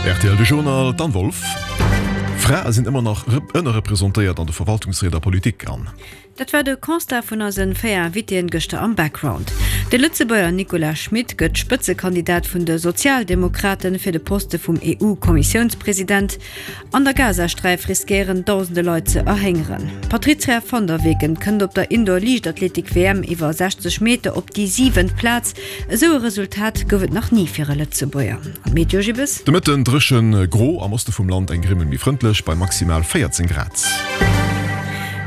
Rtl De Journal, d'Anne Wolff. Frae sinn ëmmer nach ënnerrepresentéiert an de Verwaltungsried a Politik an. Dat war de Constat vun eisen 4 Invitéen gëschter am Background. De Lëtzebuerger Nicolas Schmit gëtt Spëtzekandidat vun de Sozialdemokraten fir de Poste vum EU-Kommissiounspresident. An der Gazasträif riskéieren dausende Leit ze erhéngeren. D'Patrizia van der Weken kënnt op der Indoor-Liichtathletik-WM iwwer 60 Meter op déi siwent Plaz. Esou e Resultat gouf et nach ni fir e Lëtzebuerger. An d'Meteo, Gibbes? De Mëtten dréchen, gro, am Oste vum Land eng Grimmel méi frëndlech bei maximal 14 Grad.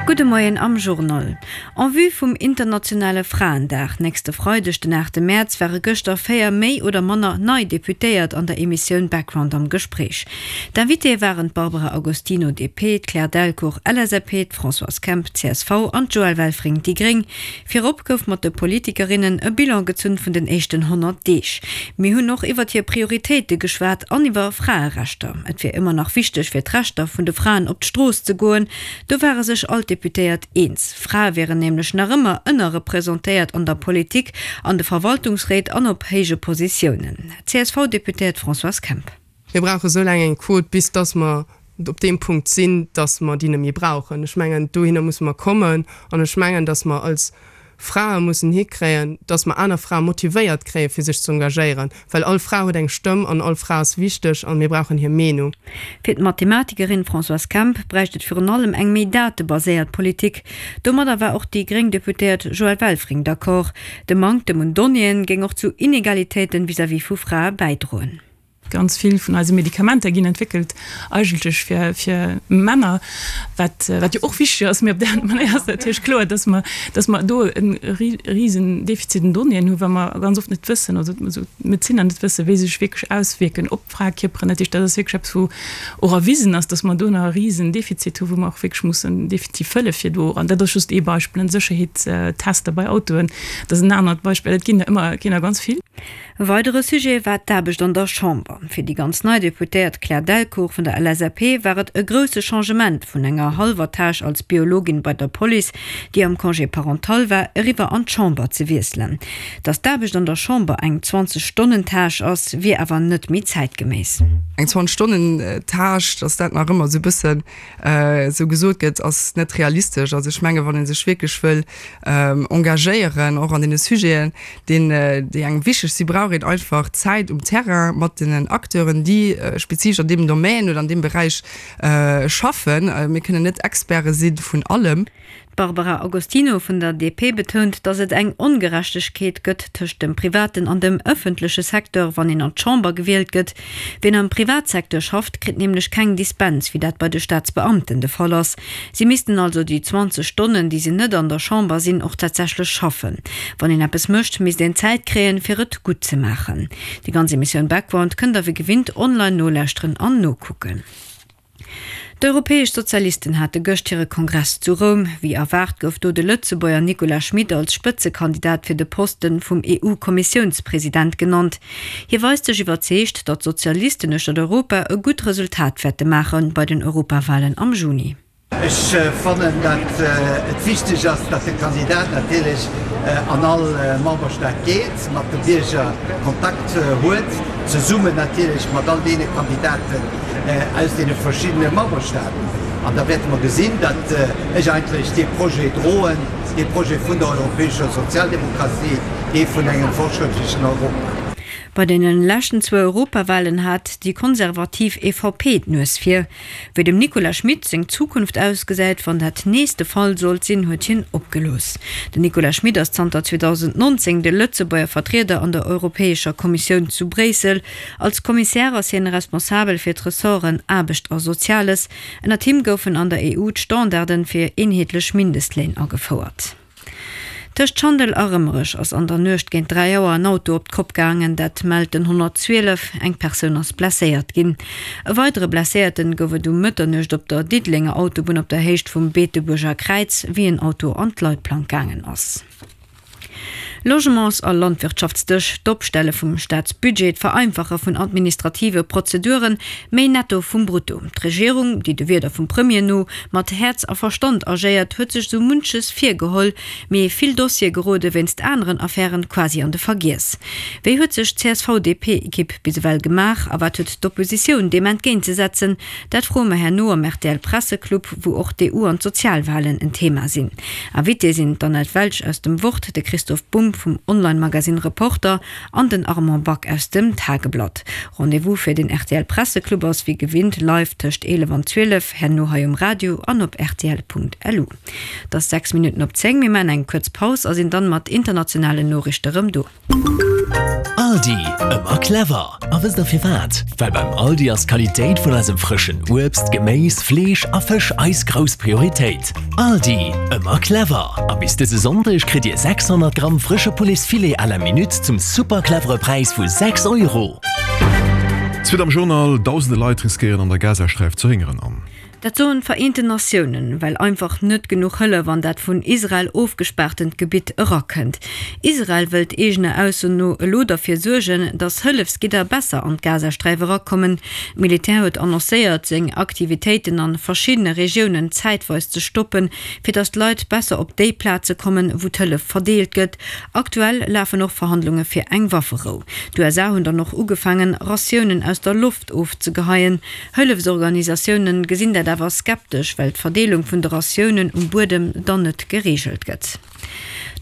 Gudde Moien am Journal. En vue vum internationale Fraendag nächste Freideg, den 8 Mäerz, ware gëschter 4 méi oder manner nei Deputéiert an der Emissioun Background am Gespréich. D'Invitéë waren d'Barbara Agostino, DP, d'Claire Delcourt, LSAP, d'Françoise Kemp, csv, an d'Joëlle Welfring, déi gréng. Virop gouf mat de Politikerinnen e Bilan gezunn vun den éischten 100 Deeg. Mir hunn och iwwert hir Prioritéite geschwat an iwwer Fraerechter. Et wier ëmmer nach wichteg fir d'Rechter vun de Fraen op d'Strooss ze goen. Do ware sech all d'Deputéiert eens. Frae wieren nämlech nach ëmmer ënnerrepresentéiert an der Politik, an de Verwaltungsréit an op héije Positiounen. D'CSV-Deputéiert Françoise Kemp. Mir brauche sou laang eng Quot, bis dass mer op deem Punkt sinn, dass mer déi net méi brauchen. Ech mengen, dohinner musse mer kommen. An ech mengen, dass mer als Frae mussen hikréien, dass mer aner Frae motivéiert kréien, fir sech ze engagéieren. Well all Fra huet eng Stëmm an all Fra ass wichteg an mir brauchen hir Meenung. Fir d'Mathematikerin Françoise Kemp bräicht et virun allem eng méi datebaséiert Politik. Domadder war och déi gréng Deputéiert Joëlle Welfring d'accord. De Manktem un Donnéeën géing och zu Inegalitéiten vis-à-vis vu Frae bäidroen. Ganz vill vun eise Medikamenter ginn entwéckelt eigentlech fir, fir Männer, wat, wat jo och wichteg ass. Mee op där aner Manéier ass natierlech kloer, dass mer, dass mer do e risen Defizit un Donnéeën hunn, well mer ganz oft net wëssen, also d'Medezinner net wëssen, wéi se sech wierklech auswierken op d'Fraekierperen. Dat heescht, dat ass wierklech eppes, wou och erwisen ass, dass mer do nach e risen Defizit hunn, wou mer och wierklech mussen definitiv fëlle fir do, an dat ass just ee Beispill, Sécherheetstester bei Autoen, dat ass en anert Beispill, et ginn der ëmmer, et ginn der ganz vill. E weidere Sujet war d'Aarbecht an der Chamber. Fir déi ganz nei Deputéiert Claire Delcourt vun der LSAP war et e grousse Changement, vun enger hallwer Tâche als Biologin bei der Police, déi am Congé parental war, eriwwer an d'Chamber ze wiesselen. Datt d'Aarbecht an der Chamber eng 20 Stonnen Tâche ass, wier awer net méi zäitgeméiss. Eng 20 Stonnen Tâche, datt dat nach ëmmer esou e bëssen esou gesot gëtt, ass net realistesch. Also ech menge wann ee sech wierklech wëll engagéieren, och an deene Sujeten, deen, déi engem wichteg sinn, brauch een einfach Zäit um Terrain mat den Acteuren, déi spezifesch an deem Domaine oder an deem Beräich schaffen. Mir kënnen net Experte si vun allem. D'Barbara Agostino vun der DP betount, datt et eng Ongerechtegkeet gëtt tëscht dem privaten an dem ëffentleche Secteur, wann een an d'Chamber gewielt gëtt. Wien am Privatsecteur schafft, kritt nämlech keng Dispens, wéi dat bei de Staatsbeamten de Fall ass. Si missten also déi 20 Stonnen, déi se net an der Chamber sinn, och tatsächlech schaffen. Wann een eppes mécht, misst een Zäit kréien, fir et gutt ze maachen. Déi ganz Emissioun Background kënnt der wéi gewinnt online nolauschteren an nokucken. D'Europäesch Sozialisten hate gëscht hire Kongress zu Roum. Wéi erwaart gouf do de Lëtzebuerger Nicolas Schmit als Spëtzekandidat fir de Posten vum EU-Kommissiounspresident genannt. Hie weist sech iwwerzeegt, datt d'Sozialisten uechtert Europa e gutt Resultat wäerte maache bei den Europawalen am Juni. Ech fannen, datt et wichteg ass, datt de Kandidat natierlech an all Memberstaat geet, mat de Bierger Kontakt huet, zesummen natierlech mat all deene Kandidaten aus deene verschiddene Memberstaaten. An da wäerte mer gesinn, datt ech eigentlech dee Projet droen, dee Projet vun der europäescher Sozialdemokratie, dee vun engem fortschrëttlechen Europa. Bei deene leschten zwou Europawalen hat déi konservativ EVP d'Nues vir. Wéi dem Nicolas Schmit seng Zukunft ausgesäit, wann dat nees de Fall sollt sinn, huet hien opgelooss. Den Nicolas Schmit ass zanter 2019 de Lëtzebuerger Vertrieder an der Europäescher Kommissioun zu Bréissel. Als Kommissär ass hien responsabel fir d'Ressorten Aarbecht a Soziales. Ënnert him goufen an der EU d'Standarden fir eenheetlech Mindestléin agefouert. Tëscht Schandel a Rëmerech ass an der Nuecht géint 3 Auer en Auto op d'Kopp gaangen, dat mellt den 112. Eng Persoun ass blesséiert ginn. E weidere Blesséierten gouf et um Mëtternuecht op der Diddelenger Autobunn op der Héicht vum Beetebuerger Kräiz, wéi en Auto an d'Leitplank gaangen ass. Logements a Landwirtschaftsdësch, d'Opstelle vum Staatsbudget, d'Vereinfache vun administrative Prozeduren, méi Netto vum Brutto. D'Regierung, déi de Wierder vum Premier no mat Häerz a Verstand agéiert, huet sech sou munches virgeholl, mee vill Dossiere gerode wéinst aneren Affären quasi an de Vergiess. Wéi huet sech d'CSV-DP-Ekipp bis ewell gemaach a wat huet d'Oppositioun deem entgéintzesetzen? Dat froe mer herno am RTL-Presseclub, wou och d'EU an d'Sozialwalen en Thema sinn. Invitée sinn d'Annette Welsch aus dem Wort, de Christoph Bumb vum Online-Magasinn Reporter an den Armand Back aus dem Tageblatt. Rendez-vous fir den RTL-Presseclub ass wéi gewinnt live tëscht 11 an 12, herno hei um Radio an op rtl.lu. Et ass 6 Minutten op 10, mir maachen eng kuerz Paus a sinn dann mat internationalen Noriichte rëm do. Aldi, ëmmer clever! A wësst der firwat? Well beim Aldi ass d'Qualitéit vun eisem frëschen Uebst, Geméis, Fleesch a Fësch eis grouss Prioritéit. Aldi, ëmmer clever! A bis dëse Sonndeg kritt Dir 600 Gramm frësche Pouletsfilet à la minute zum super clevere Präis vu 6 Euro. Suite am Journal, Dausende Leit riskéieren an der Gazasträif ze héngeren an. Dat soen d'Vereenten Natiounen, well einfach net genuch Hëllef an dat vun Israel ofgespaartent Gebitt erakënnt. Israel wëllt eegener Ausso no elo derfir suergen, datt Hëllefsgidder besser an d'Gazasträif erakommen. D'Militär huet annoncéiert, seng Aktivitéiten an verschiddene Regiounen zäitweis ze stoppen, fir datt d'Leit besser op déi Plaze kommen, wou d'Hëllef verdeelt gëtt. Aktuell lafen och Verhandlunge fir eng Wafferou. D'USA hunn dann och ugefaangen, Ratiounen aus der Loft ofzegeheien. Hëllefsorganisatioune gesinn dat awer skeptesch, well d'Verdeelung vun de Ratiounen um Buedem dann net gereegelt gëtt.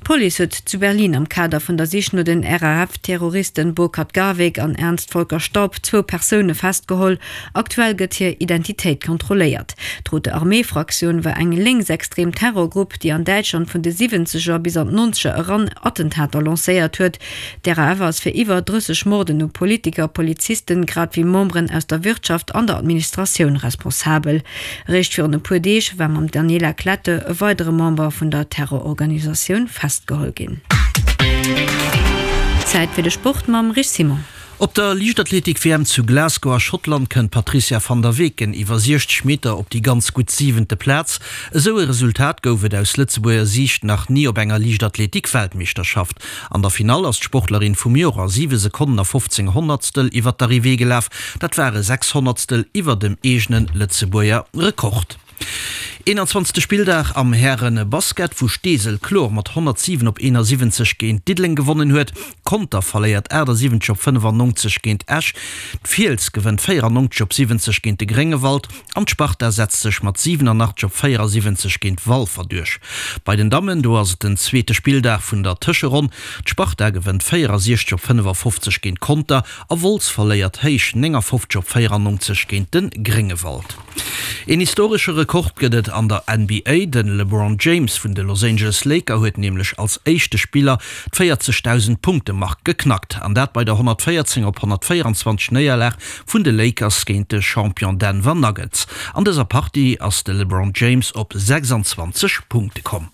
D'Police huet zu Berlin am Kader vun der Sich no den RAF-Terroristen Burkhard Garweg an Ernst Volker Staub zwou Persoune festgeholl. Aktuell gëtt hir Identitéit kontrolléiert. D'Rote Armee-Fraktioun war eng lénksextrem Terrorgrupp, déi an Däitschland vun de Siwwenzeger bis an d'Nonzeger eran Attentater lancéiert huet. D'RAF ass fir iwwer 30 Morden u Politiker, Polizisten, grad wéi Memberen aus der Wirtschaft an der Administratioun responsabel. Eréischt virun e puer Deeg war mam Daniela Klette e weidere Member vun der Terrororganisatioun festgeholl ginn. Zäit fir de Sport mam Rich Simon. Op der Liichtathletik-WM zu Glasgow a Schottland kënnt d'Patrizia van der Weken iwwer 60 Meter op déi ganz gutt siwente Plaz. Esou e Resultat gouf et aus Lëtzebuerger Siicht nach ni op enger Liichtathletik-Weltmeeschterschaft. An der Finall ass d'Sportlerin vum Joer a 7 Sekonnen a 15 Honnertstel iwwer d'Arrivée gelaf. Dat ware 6 Honnertstel iwwer dem eegene Lëtzebuerger Rekord. 21. Spilldag am Häre-Basket, wou Steesel kloer mat 107 op 71 géint Diddeleng gewonnen huet. Conter verléiert 78 op 95 géint Esch. D'Fiels gewënnt 94 op 70 géint de Gréngewald. An d'Sparta setzt sech mat 87 op 74 géint Walfer duerch. Bei den Dammen, do ass et den zweete Spilldag vun der Tëscheronn. D'Sparta gewënnt 64 op 55 géint Conter a Wolz verléiert héich 59 op 94 géint de Gréngewald. Een historesche Rekord gëtt et an der NBA. De LeBron James vun de Los Angeles Laker huet nämlech als éischte Spiller d'Véierzegdausend Punkte Mark geknackt. An dat bei der 114 op 124 Néierlag vun de Lakers géint de Champion Denver Nuggets. An dëser Partie ass de LeBron James op 26 Punkte komm.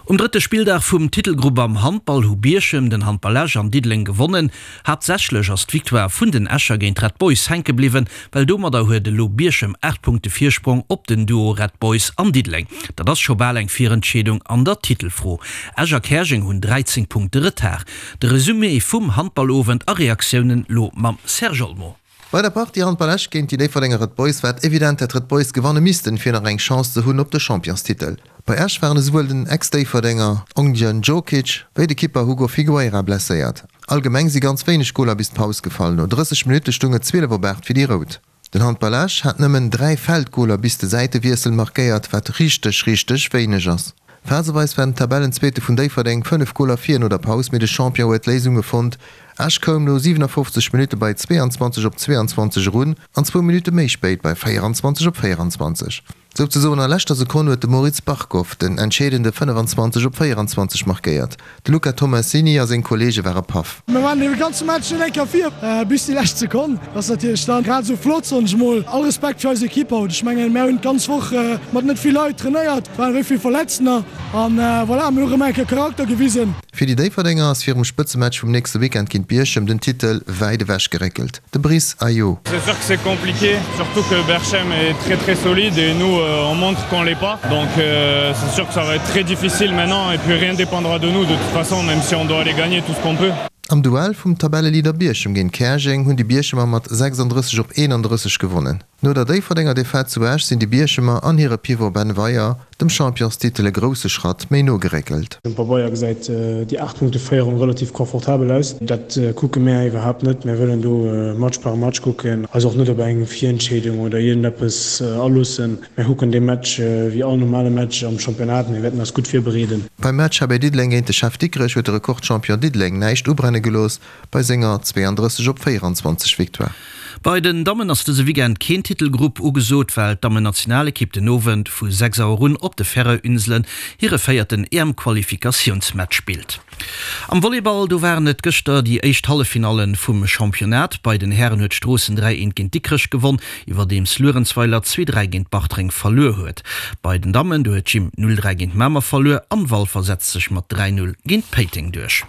Um drëtte Spilldag vum Titelgrupp am Handball hu Bierchem, den Handball Esch an Diddeleng gewonnen. Haaptsächlech ass d'Victoire vun den Escher géint d'Red Boys hänke bliwwen, well domadder huet elo Bierchem 8 Punkte Virsprong op den Duo Red Boys an Diddeleng. Dat ass scho bal eng Virentscheedung an der Titelfro. Esch a Käerjeng hunn 13 Punkte Retard. De Resumé vum Handballowend a Reaktiounen lo mam Serge Olmo. Bei der Partie Handball Esch géint déi Déifferdenger Red Boys war et evident, dat d'Red Boys gewanne missten, fir nach eng Chance ze hunn op de Championstitel. Bei Esch waren esouwuel den Ex-Déifferdenger Ognjen Djokic wéi de Kipper Hugo Figueira blesséiert. Allgemeng si ganz wéineg Goler bis d'Paus gefall. No 30 Minutte stung et 12 op 8 fir déi Rout. Den Handball Esch hat nëmmen 3 Feldgoler bis de Säitewiessel markéiert, wat richteg, richteg wéineg ass. Phaseweis war den Tabellenzweete vun Déifferdeng 5 Goler vir no der Paus, mee de Champion huet d'Léisunge fonnt. Esch koum no 57 Minutte bei 22 op 22 erun an zwou Minutte méi spéit bei 24 op 24. Souzesoen a leschter Sekonn huet de Moritz Barkov den entscheedende 25 op 24 markéiert. De Luca Tomassini a seng Kolleege ware paff. Mir waren de ganze Match net eng Kéier vir, bis déi lescht Sekonn. Dat ass natierlech dann grad esou flott, soen ech mol. All Respekt fir eis Ekipp haut. Ech mengen, mär hunn d'ganz Woch mat net vill Leit trainéiert, et waren wéi vill Verletztener an voilà, mir hu rëm eng Kéier Charakter gewisen. Fir déi Déifferdenger ass virum Spëtzematch vum nächste Weekend géint Bierchem den Titel wäit ewech geréckelt. De Brice Ayo. C'est sûr que c'est compliqué, surtout que Berchem est très très solide et nous. on montre qu'on l'est pas. Donc euh, c'est sûr que ça va être très difficile maintenant et puis rien dépendra de nous de toute façon même si on doit aller gagner tout ce qu'on peut. Am Duell vum Tabelleleader Bierchem géint Käerjeng hunn déi Bierchemer mat 36 op 31 gewonnen. No der Déifferdenger Defaite zu Esch sinn déi Bierchemer an hire Pivot Ben Weyer dem Championstitel e grousse Schratt méi no geréckelt. Um Pabeier gesäit déi 8 Punkte Féierung relativ confortabel aus. Dat kucke mär iwwerhaapt net. Mär wëllen do Match par Match kucken, eis och net op eng Virentscheedung oder iergendeppes aloossen. Mär kucken dee Match wéi all normale Match am Championnat. Mir wäerten eis gutt virbereeden. Beim Match HB Diddeleng géint de Chef Dikrech huet de Rekordchampion Diddeleng näischt ubrenne gelooss bei senger 32 op 24 Victoire. Bei den Dammen ass dëse Weekend keen Titelgrupp ugesot, well d'Dammennationalekipp den Owend vu 6 Auer un op de Färöer-Inselen hire véierten EM-Qualifikatiounsmatch spillt. Am Volleyball, do waren et gëschter déi éischt Halleffinalle vum Championnat. Bei den Hären huet Stroossen 3, 1 géint Dikrech gewonn, iwwerdeems Luerenzweiler 2, 3 géint Bartreng verluer huet. Bei den Dammen, do huet d'Gym 0, 3 géint Mamer verluer an Walfer setzt sech mat 3, 0 géint Péiteng duerch.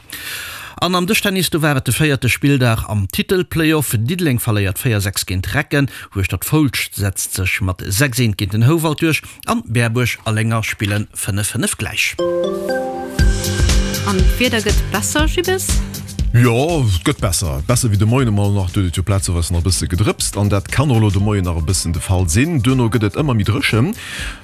An am Dëschtennis, do war et de véierte Spilldag am Titel-Playoff. Diddeleng verléiert 4, 6 géint Recken, Hueschtert-Foulscht setzt sech mat 6, 1 géint den Houwald duerch. An Berbuerg a Lénger spillen 5, 5 gläich. An d'Wieder gëtt besser, Jibbes? Jo, et gëtt besser. Besser wéi de Moien emol nach. Do huet et jo plazeweis nach e bësse gedrëpst an dat kann och elo de Moien nach e bëssen de Fall sinn. Duerno gëtt et ëmmer méi dréchen.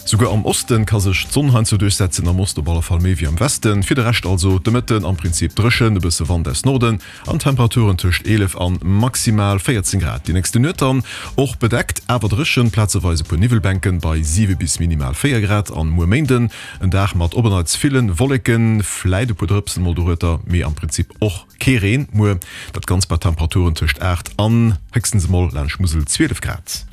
Souguer am Oste ka sech d'Sonn heiansdo duerchsetzen, am Oste op alle Fall méi wéi am Westen. Fir de Rescht also de Mëtten am Prinzip dréchen, e bësse Wand aus Norden An Temperaturen tëscht 11 an maximal 14 Grad. Déi nächste Nuet dann och bedeckt, awer dréchen, plazeweis e puer Niwwelbänken bei 7 bis minimal 4 Grad. An muer Méinden en Dag mat op en Neits villen Wolleken, fläit e puer Drëpsen mol dorueter, mee am Prinzip och kee Reen muer. Dat Ganzt bei Temperaturen tëscht 8 an héchstens emol laanscht Musel 12 Grad.